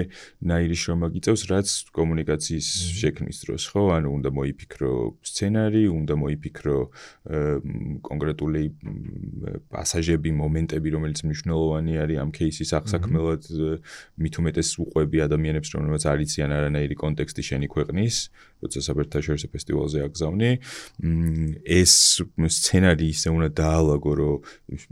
Speaker 3: ნაირი შრომა გიწევს, რაც კომუნიკაციის შექმნის დროს, ხო? ანუ უნდა მოიფიქრო სცენარი, უნდა მოიფიქრო კონკრეტული პასაჟები, მომენტები, რომელიც მნიშვნელოვანი არის ამ кейსის აღსაქმელად, მით უმეტეს უყვები ადამიანებს, რომლებიც არ იციან არანაირი კონტექსტი შენი ქვეყნის, როცა საბერტაშორისო ფესტივალზე აგზავნი. ეს სცენარი ისე უნდა დაალაგო, რომ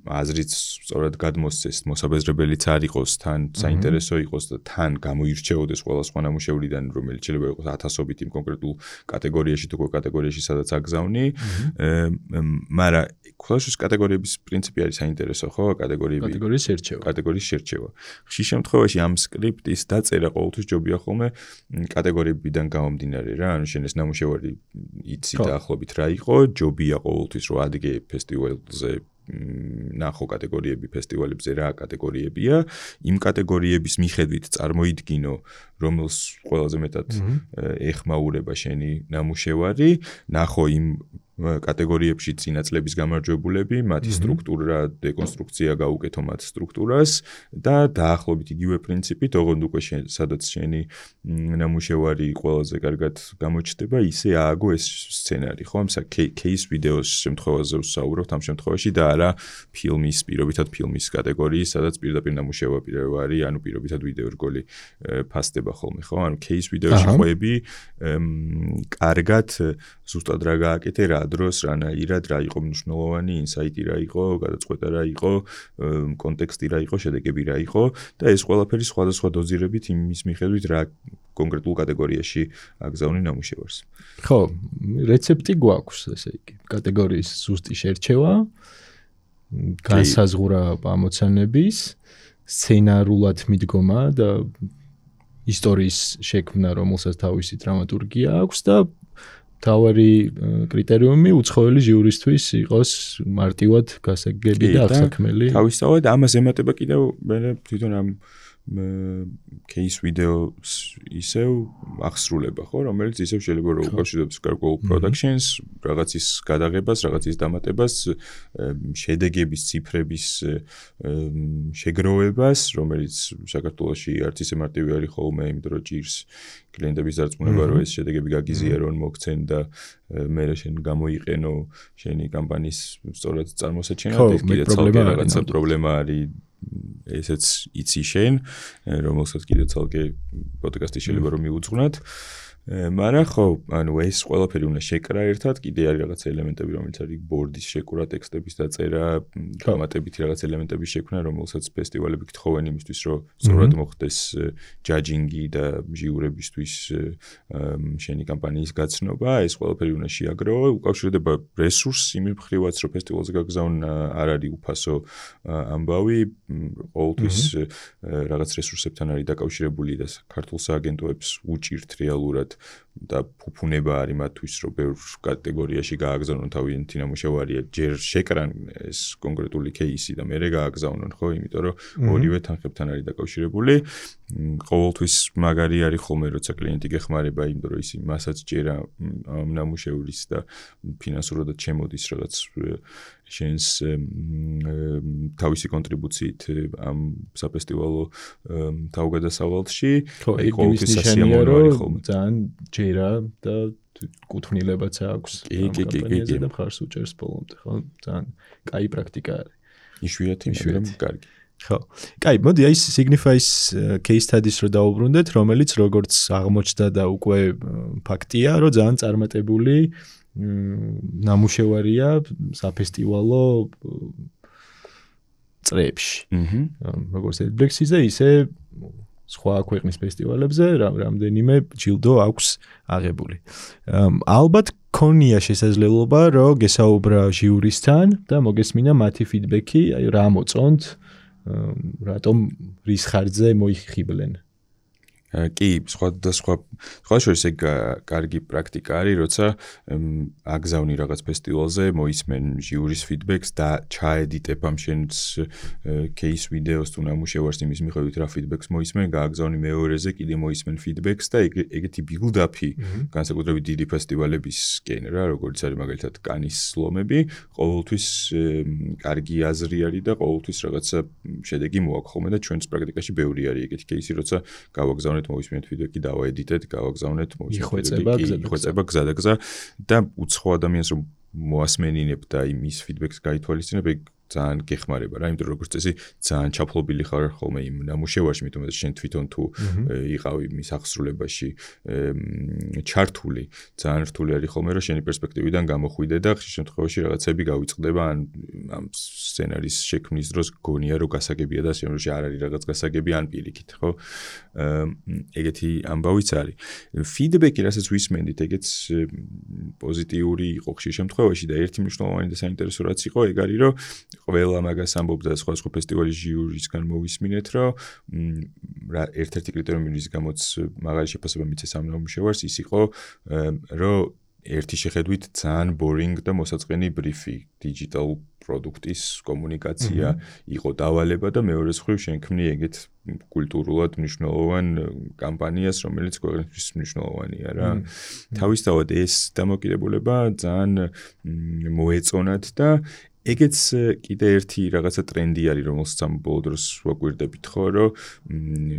Speaker 3: აზრიც სწორად გადმოსცეს, მოსაბეზრებელიც არ იყოს, თან საინტერესო იყოს და თან გამოირჩეოდეს ყველა სხვა ნამუშევრიდან, რომელიც შეიძლება იყოს 1000-ობით იმ კონკრეტულ კატეგორიაში თუ კატეგორიაში სადაც აგზავნი. მაგრამ ყველაშიც კატეგორიების პრინციპი არის საინტერესო, ხო? კატეგორიის შერჩევა. ხშირ შემთხვევაში ამ სკრიპტის დაწერა ყოველთვის ჯობია ხოლმე კატეგორიებიდან გამომდინარე რა, ანუ შენ ეს ნამუშევარი იცი დაახლოებით რა იყო, ჯობია ყოველთვის რომ ადგე ფესტივალზე ნახო კატეგორიები ფესტივალებზე რა კატეგორიებია, იმ კატეგორიების მიხედვით წარმოიდგინო, რომელს ყველაზე მეტად ეხმაურება შენი ნამუშევარი, ნახო იმ კატეგორიებში წინაწლების გამარჯვებულები, მათი სტრუქტურა, დეკონსტრუქცია გაუკეთო მათ სტრუქტურას და დაახლოებით იგივე პრინციპით, ოღონდ უკვე სადაც შენი ნამუშევარი ყველაზე კარგად გამოჩნდება, ისე ააგო ეს სცენარი, ხო? кейს ვიდეოს შემთხვევაზე ვსაუბრობთ ამ შემთხვევაში და არა ფილმის, პირობითად ფილმის კატეგორიის, სადაც პირდაპირ ნამუშევარი არის, ანუ პირობითად ვიდეო რგოლი ფასდება ხოლმე, ხო? ანუ кейს ვიდეოში ყვები კარგად ზუსტად რა გააკეთე, რა დროს, რანაირად, რა იყო მნიშვნელოვანი, ინსაიტი რა იყო, გადაწყვეტა რა იყო, კონტექსტი რა იყო, შედეგები რა იყო და ეს ყველაფერი სხვადასხვა დოზირებით იმის მიხედვით რა კონკრეტულ კატეგორიაში აგზავნი ნამუშევარს.
Speaker 1: ხო, რეცეპტი გვაქვს, ესე იგი, კატეგორიის ზუსტი შერჩევა, განსაზღვრა ამოცანების, სცენარულად მიდგომა და ისტორიის შექმნა, რომელსაც თავისი დრამატურგია აქვს და თავარი კრიტერიუმი უცხოელი ჟიურისთვის იყოს მარტივად გასაგები და აღსაქმელი.
Speaker 3: თავისთავად ამას ემატება კიდევ მე თვითონ ამ кейს ვიდეოს ისევ აღსრულება, ხო, რომელიც ისევ შეიძლება რომ უკავშირდება გარკვეულ პროდაქშენს, რაღაცის გადაღებას, რაღაცის დამატებას, შედეგების ციფრების შეგროვებას, რომელიც საქართველოში არც ისე მარტივი არის ხოლმე, იმიტომ რომ ჭირს კლიენტების დარწმუნება, რომ ეს შედეგები გაგიზიარონ, მოგცენ და მე შენ გამოიყენო შენი კამპანიის სწორად წარმოსაჩენად, ეს კიდე ცალკე რაღაცა პრობლემა არის. ესეც იცი შენ, რომელსაც კიდე ცალკე პოდკასტი შეიძლება რომ მიუძღვნათ. მაგრამ ხო, ანუ ეს ყველაფერი უნდა შეკრა ერთად, კიდე არის რაღაც ელემენტები, რომელიც არის ბორდის შეკრა, ტექსტების დაწერა, დამატებითი რაღაც ელემენტების შექმნა, რომელსაც ფესტივალები გთხოვენ იმისთვის, რომ სწორად მოხდეს ჯაჯინგი და ჟიურებისთვის შენი კამპანიის გაცნობა, ეს ყველაფერი უნდა შეაგროვო, უკავშირდება რესურსს იმ მხრივაც, რომ ფესტივალზე გაგზავნა არ არის უფასო ამბავი, ყოველთვის რაღაც რესურსებთან არის დაკავშირებული და ქართულ სააგენტოებს უჭირთ რეალურად და ფუფუნება არის მათთვის, რომ ბევრ კატეგორიაში გააგზავნონ თავიანთი ნამუშევარია, ჯერ შეკრან ეს კონკრეტული кейსი და მერე გააგზავნონ, ხო, იმიტომ რომ ორივე თანხებთან არის დაკავშირებული. ყოველთვის მაგარი არის ხოლმე, როცა კლიენტი გეხმარება, იმიტომ რომ ის მასაც ჭერა ამ ნამუშევრის და ფინანსურად შემოდის რაღაც შენს თავისი კონტრიბუციით ამ საფესტივალო თავგადასავალში,
Speaker 1: აი ყოველთვის სასიამოვნო არის ხოლმე. ძალიან ჯერა და კუთვნილებაც აქვს ამ კამპანიაზე და მხარს უჭერს ბოლომდე, ხო? ძალიან კაი პრაქტიკა არის.
Speaker 3: იშვიათი, მაგრამ კარგი.
Speaker 1: ხო. კაი, მოდი აი Signify-ის case studies რო დავუბრუნდეთ, რომელიც როგორც აღმოჩნდა და უკვე ფაქტია, რომ ძალიან წარმატებული ნამუშევარია საფესტივალო წრეებში. როგორც Edblexis-ზე, ისე სხვა ქვეყნის ფესტივალებზე რამდენიმე ჯილდო აქვს აღებული. ალბათ ქონია შესაძლებლობა, რომ გესაუბრა ჟიურისთან და მოგესმინა მათი ფიდბექი, აი რა მოწონთ, რატომ რის ხარჯზე მოიხიბლენ.
Speaker 3: კი, სხვა შორის ეგ კარგი პრაქტიკა არის, როცა აგზავნი რაღაც ფესტივალზე, მოისმენ ჟიურის ფიდბექს და ჩაედიტებ ამ შენს кейს ვიდეოს თუ ნამუშევარს იმის მიხედვით რა ფიდბექს მოისმენ, გააგზავნი მეორეზე, კიდე მოისმენ ფიდბექს და ეგეთი ბილდაპი განსაკუთრებით დიდი ფესტივალებისკენ რა, როგორც არის მაგალითად კანის ლომები, ყოველთვის კარგი აზრი არის და ყოველთვის რაღაცა შედეგი მოაქვს ხოლმე და ჩვენს პრაქტიკაში ბევრი არის ეგეთი кейსი, როცა გავაგზავნეთ მოისმენთ ფიდბექი დავაედიტეთ, გავაგზავნეთ იხვეწება გზადაგზა და უცხო ადამიანს რომ მოასმენინებ და იმის ფიდბექს გაითვალისწინებ, ეგ ძალიან გეხმარება რა, იმიტომ რომ როგორც წესი ძალიან ჩაფლობილი ხარ ხოლმე იმ ნამუშევარში, იმიტომ რომ შენ თვითონ თუ იყავი მის აღსრულებაში ჩართული, ძალიან რთული არის ხოლმე რომ შენი პერსპექტივიდან გამოხვიდე და ხშირ შემთხვევაში რაღაცები გავიწყდება ამ სცენარის შექმნის დროს გონია რომ გასაგებია და შემდგომში არ არის რაღაც გასაგები ან პირიქით, ხო? ეგეთი ამბავიც არის. ფიდბექი, რასაც ვისმენდით, ეგეც პოზიტიური იყო ხშირ შემთხვევაში და ერთი მნიშვნელოვანი და საინტერესო რაც იყო, ეგ არის რომ ყველა მაგას ამბობდა სხვა ფესტივალის ჟიურისგან მოვისმინეთ, რომ ერთ-ერთი კრიტერიუმი რის გამოც მაღალი შეფასება მიცეს ამ ნამუშევარს ის იყო, რომ ერთი შეხედვით ძალიან boring და მოსაწყენი ბრიფი digital პროდუქტის კომუნიკაცია იყო დავალება და მეორე მხრივ შენქმნი ეგეთ კულტურულად მნიშვნელოვან კამპანიას, რომელიც ქვეყნისთვის მნიშვნელოვანია რა. თავისთავად ეს დამოკიდებულება ძალიან მოეწონათ და ეგეც კიდე ერთი რაღაცა ტრენდი არის, რომელსაც ამ ბოლო დროს ვაკვირდებით ხო, რომ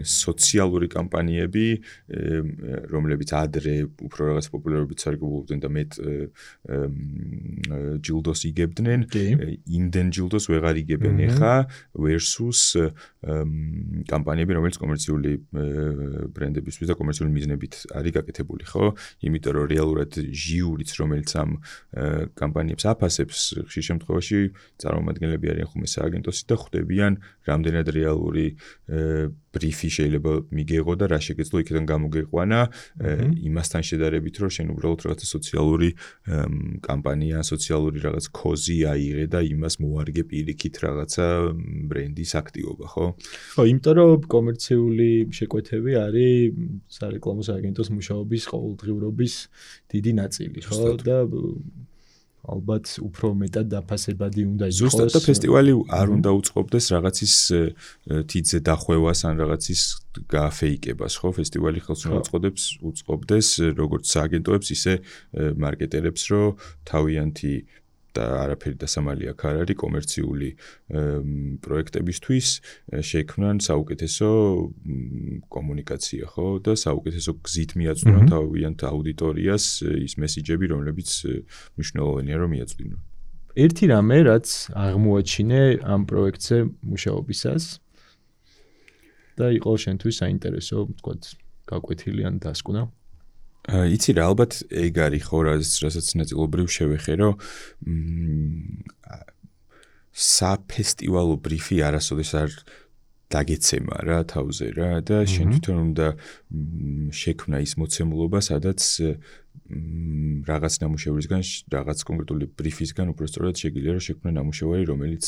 Speaker 3: სოციალური კამპანიები, რომლებიც ადრე უფრო რაღაც პოპულარობით სარგებლობდნენ და მეტ ჯილდოს იგებდნენ, იმდენ ჯილდოს ვეღარ იგებენ ახლა versus კამპანიები, რომელიც კომერციული ბრენდებისთვის და კომერციული მიზნებით არის გაკეთებული, ხო? იმიტომ რომ რეალურად ჟიურიც, რომელიც ამ კამპანიებს აფასებს, ხშირ შემთხვევაში წარმომადგენლები არიან ხოლმე სააგენტოსი და ხვდებიან რამდენად რეალური ბრიფი შეიძლება მიგეღო და რა შეგეძლო იქიდან გამოგეყვანა იმასთან შედარებით, რომ შენ უბრალოდ რაღაცა სოციალური კამპანია, სოციალური რაღაც კოზი აიღე და იმას მოარგე პირიქით რაღაცა ბრენდის აქტივობა, ხო?
Speaker 1: ხო, იმიტომ რომ კომერციული შეკვეთები არის სარეკლამო სააგენტოს მუშაობის ყოველდღიურობის დიდი ნაწილი, ხო? და ალბათ უფრო მეტად დაფასებადი უნდა იყოს.
Speaker 3: ზუსტად და ფესტივალი არ უნდა უწყობდეს რაღაცის თითზე დახვევას ან რაღაცის გააფეიკებას, ხო? ფესტივალი ხელს უნდა უწყობდეს როგორც სააგენტოებს, ისე მარკეტერებს, რომ თავიანთი და არაფერი დასამალი აქ არ არის კომერციული პროექტებისთვის შექმნან საუკეთესო კომუნიკაცია, ხო? და საუკეთესო გზით მიაწვდიან თავიანთ აუდიტორიას ის მესიჯები, რომლებიც მნიშვნელოვანია რომ მიაწვდინონ.
Speaker 1: ერთი რამე, რაც აღმოაჩინე ამ პროექტზე მუშაობისას და იყო შენთვის საინტერესო, ვთქვათ, გაკვეთილი ან დასკვნა.
Speaker 3: იცი რა, ალბათ ეგ არის ხო, რასაც ნაწილობრივ შევეხე, რომ საფესტივალო ბრიფი არასოდეს არ დაგეცემა რა თავზე რა და შენ თვითონ უნდა შექმნა ის მოცემულობა, სადაც რაღაც ნამუშევრისგან, რაღაც კონკრეტული ბრიფისგან უბრალოდ შეგიძლია რომ შექმნა ნამუშევარი, რომელიც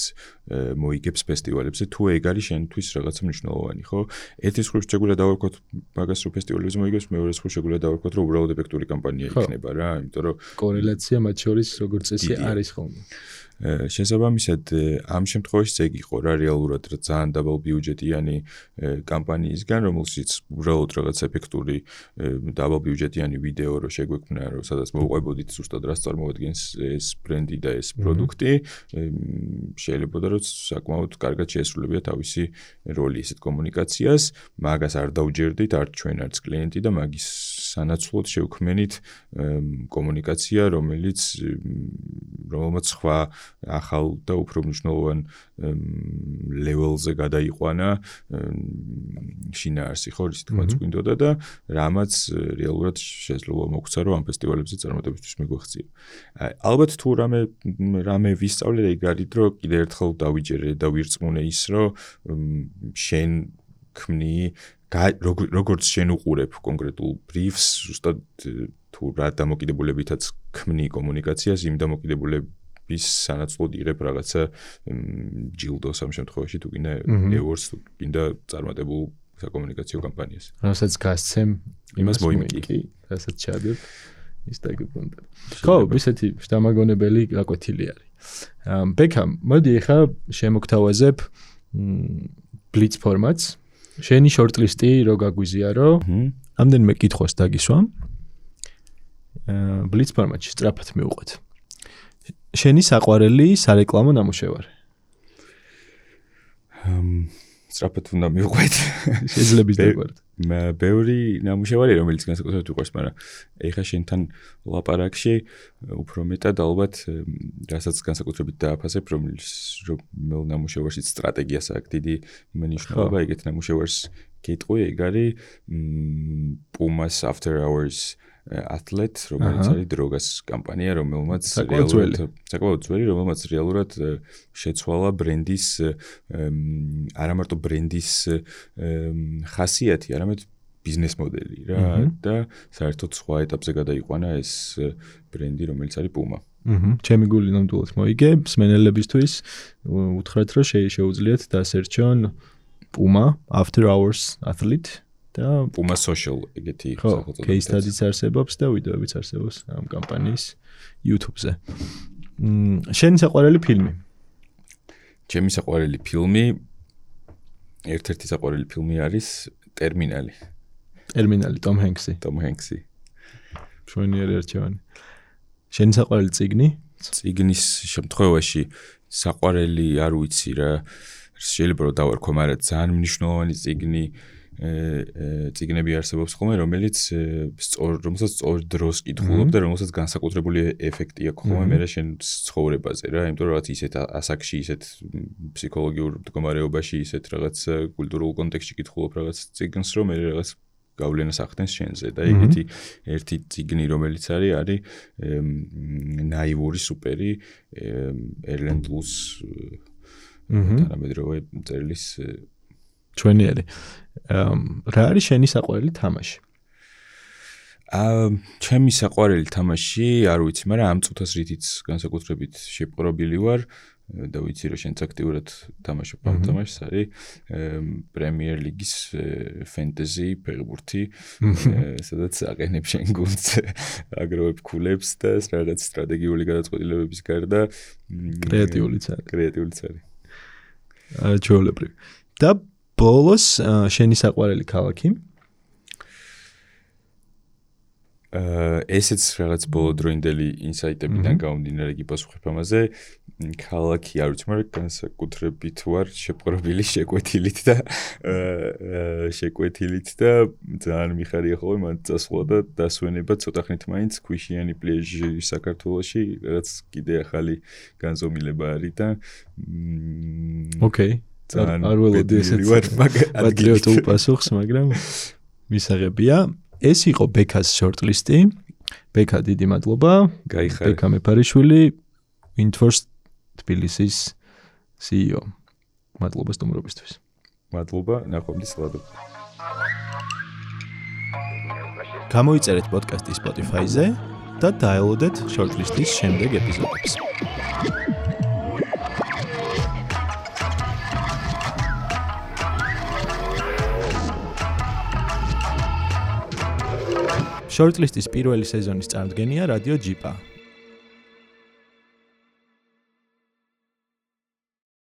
Speaker 3: მოიგებს ფესტივალებზე, თუ ეგ არის შენთვის რაღაცა მნიშვნელოვანი, ხო? ერთის მხრივ შეგვიძლია დავარქვათ მაგას რომ ფესტივალებზე მოიგებს, მეორე მხრივ შეგვიძლია დავარქვათ რომ უბრალოდ ეფექტური კამპანია იქნება რა, იმიტომ რომ
Speaker 1: კორელაცია მათ შორის როგორც წესი არის ხოლმე.
Speaker 3: შესაბამისად, ამ შემთხვევაში ეგ იყო რა რეალურად ძალიან დაბალბიუჯეტიანი კამპანიისგან, რომელშიც უბრალოდ რაღაც ეფექტური დაბალბიუჯეტიანი ვიდეო რო შეგვექმნა, რომ სადაც მოვყვებოდით ზუსტად რას წარმოადგენს ეს ბრენდი და ეს პროდუქტი, შეიძლება რომ საკმაოდ კარგად შეესრულებია თავისი როლი ესეთ კომუნიკაციას, მაგას არ დავჯერდით არც ჩვენ არც კლიენტი და მაგის სანაცვლოდ შევქმნით კომუნიკაცია, რომელმაც სხვა ახალ და უფრო მნიშვნელოვან ლეველზე გადაიყვანა შინაარსი, ხო, ისე თქვაც გვინდოდა და რამაც რეალურად შესაძლოა მოგცა, რომ ამ ფესტივალებზე წარმატებისთვის მიგვეღწია. ალბათ თუ რამე ვისწავლე, ეგ არის, რომ კიდევ ერთხელ დავიჯერე და ვირწმუნე ის, რომ შენ ქმნი როგორც შენ უყურებ კონკრეტულ ბრიფს, ზუსტად თუ რა დამოკიდებულებითაც ქმნი კომუნიკაციას, იმ დამოკიდებულების სანაცვლოდ იღებ რაღაცა ჯილდოს ამ შემთხვევაში თუ კიდე ევორს თუ კიდე წარმატებულ საკომუნიკაციო კამპანიას.
Speaker 1: რასაც გასცემ
Speaker 3: იმას მოიმკი.
Speaker 1: რასაც ჩადებ ის დაგიბრუნდა. ხო, ისეთი შთამაგონებელი გაკვეთილი არის. ბექა, მოდი ახლა შემოგთავაზებ ბლიც ფორმატს. შენი შორტლისტი რო გაგვიზიარო, ამდენიმე კითხვას დაგისვამ. ბლიც ფორმატში სწრაფად მივუყვეთ. შენი საყვარელი სარეკლამო ნამუშევარი?
Speaker 3: სწრაფად უნდა მივყვეთ.
Speaker 1: შეიძლება დაგვარდ.
Speaker 3: ბევრი ნამუშევარი რომელიც განსაკუთრებით უყვარს, მაგრამ ეხა შენთან ლაპარაკში უფრო მეტად ალბათ რასაც განსაკუთრებით დააფასებ, რომელ ნამუშევარში სტრატეგიას აქვს დიდი მნიშვნელობა, ეგეთ ნამუშევარს გეტყვი, ეგ არის Pumas After Hours Athlete, რომელიც არის დროგას კამპანია, რომელმაც საკმაოდ ძველი, რომელმაც რეალურად შეცვალა ბრენდის არა მარტო ბრენდის ხასიათი, არამედ ბიზნეს მოდელი რა და საერთოდ სხვა ეტაპზე გადაიყვანა ეს ბრენდი, რომელიც არის Puma.
Speaker 1: ჩემი გული ნამდვილად მოიგე, მსმენელებისთვის უთხრათ, რომ შეუძლიათ დასერჩონ Puma After Hours Athlete და
Speaker 3: Puma Social ეგეთი
Speaker 1: სახელწოდება. Case studies არსებობს და ვიდეოებიც არსებობს ამ კამპანიის YouTube-ზე. შენი საყვარელი ფილმი?
Speaker 3: ჩემი საყვარელი ფილმი ერთ-ერთი საყვარელი ფილმი არის ტერმინალი.
Speaker 1: ტერმინალი, Tom Hanks-ი. მშვენიერი არჩევანი. შენი საყვარელი წიგნი?
Speaker 3: წიგნის შემთხვევაში საყვარელი არ ვიცი რა, შეიძლება რომ დავარქვა, მაგრამ ძალიან მნიშვნელოვანი წიგნები არსებობს ხოლმე, რომელსაც სწორ დროს კითხულობ და რომელსაც განსაკუთრებული ეფექტი აქვს ხოლმე მე შენ ცხოვრებაზე რა, იმიტომ რომ რაღაც ისეთ ასაკში, ისეთ ფსიქოლოგიურ მდგომარეობაში, ისეთ რაღაც კულტურულ კონტექსტში კითხულობ რაღაც წიგნს, რომ მე რაღაც გავლენას ახდენს შენზე და ეგეთი ერთი წიგნი რომელიც არის ნაივური სუპერი ერლენ ლუს თანამედროვე წერილის
Speaker 1: ჩვენიერი. რა არის შენი საყვარელი თამაში?
Speaker 3: ჩემი საყვარელი თამაში არ ვიცი, მაგრამ ამ წუთას რითიც განსაკუთრებით შეპყრობილი ვარ და ვიცი რომ შენც აქტიურად თამაშობ ამ თამაშს, არის პრემიერ ლიგის ფენტეზი ფეხბურთი, სადაც აყენებ შენ გუნდს, აგროვებ ქულებს და რაღაც სტრატეგიული გადაწყვეტილებების გარდა
Speaker 1: კრეატიულიც
Speaker 3: არის.
Speaker 1: ჩვეულებრივ. და ბოლოს შენი საყვარელი ქალაქი?
Speaker 3: ესეც რაღაც ბოლოდროინდელი ინსაიტებიდან გამომდინარე გიპასუხებ ამაზე. ქალაქი არ ვიცი, მაგრამ განსაკუთრებით ვარ შეპყრობილი შეკვეთილით და ძალიან მიხარია ხოლმე მან წასვლა და დასვენება ცოტა ხნით მაინც ქვიშიანი პლეჟი საქართველოში, რაღაც კიდე ახალი განზომილება არის და
Speaker 1: ოკეი. არ ველოდი ესეც პატრიოტულ პასუხს, მაგრამ მისაღებია. ეს იყო ბექას შორტლისტი. ბექა, დიდი მადლობა. ბექა მეფარიშვილი, Windforce თბილისის CEO. მადლობა სტუმრობისთვის.
Speaker 3: მადლობა, ნახვამდის ლადო.
Speaker 1: გამოიწერეთ პოდკასტი Spotify-ზე და დაელოდეთ შორტლისტის შემდეგ ეპიზოდებს. შორტლისტის პირველი სეზონის წარმოდგენია რადიო ჯიპა.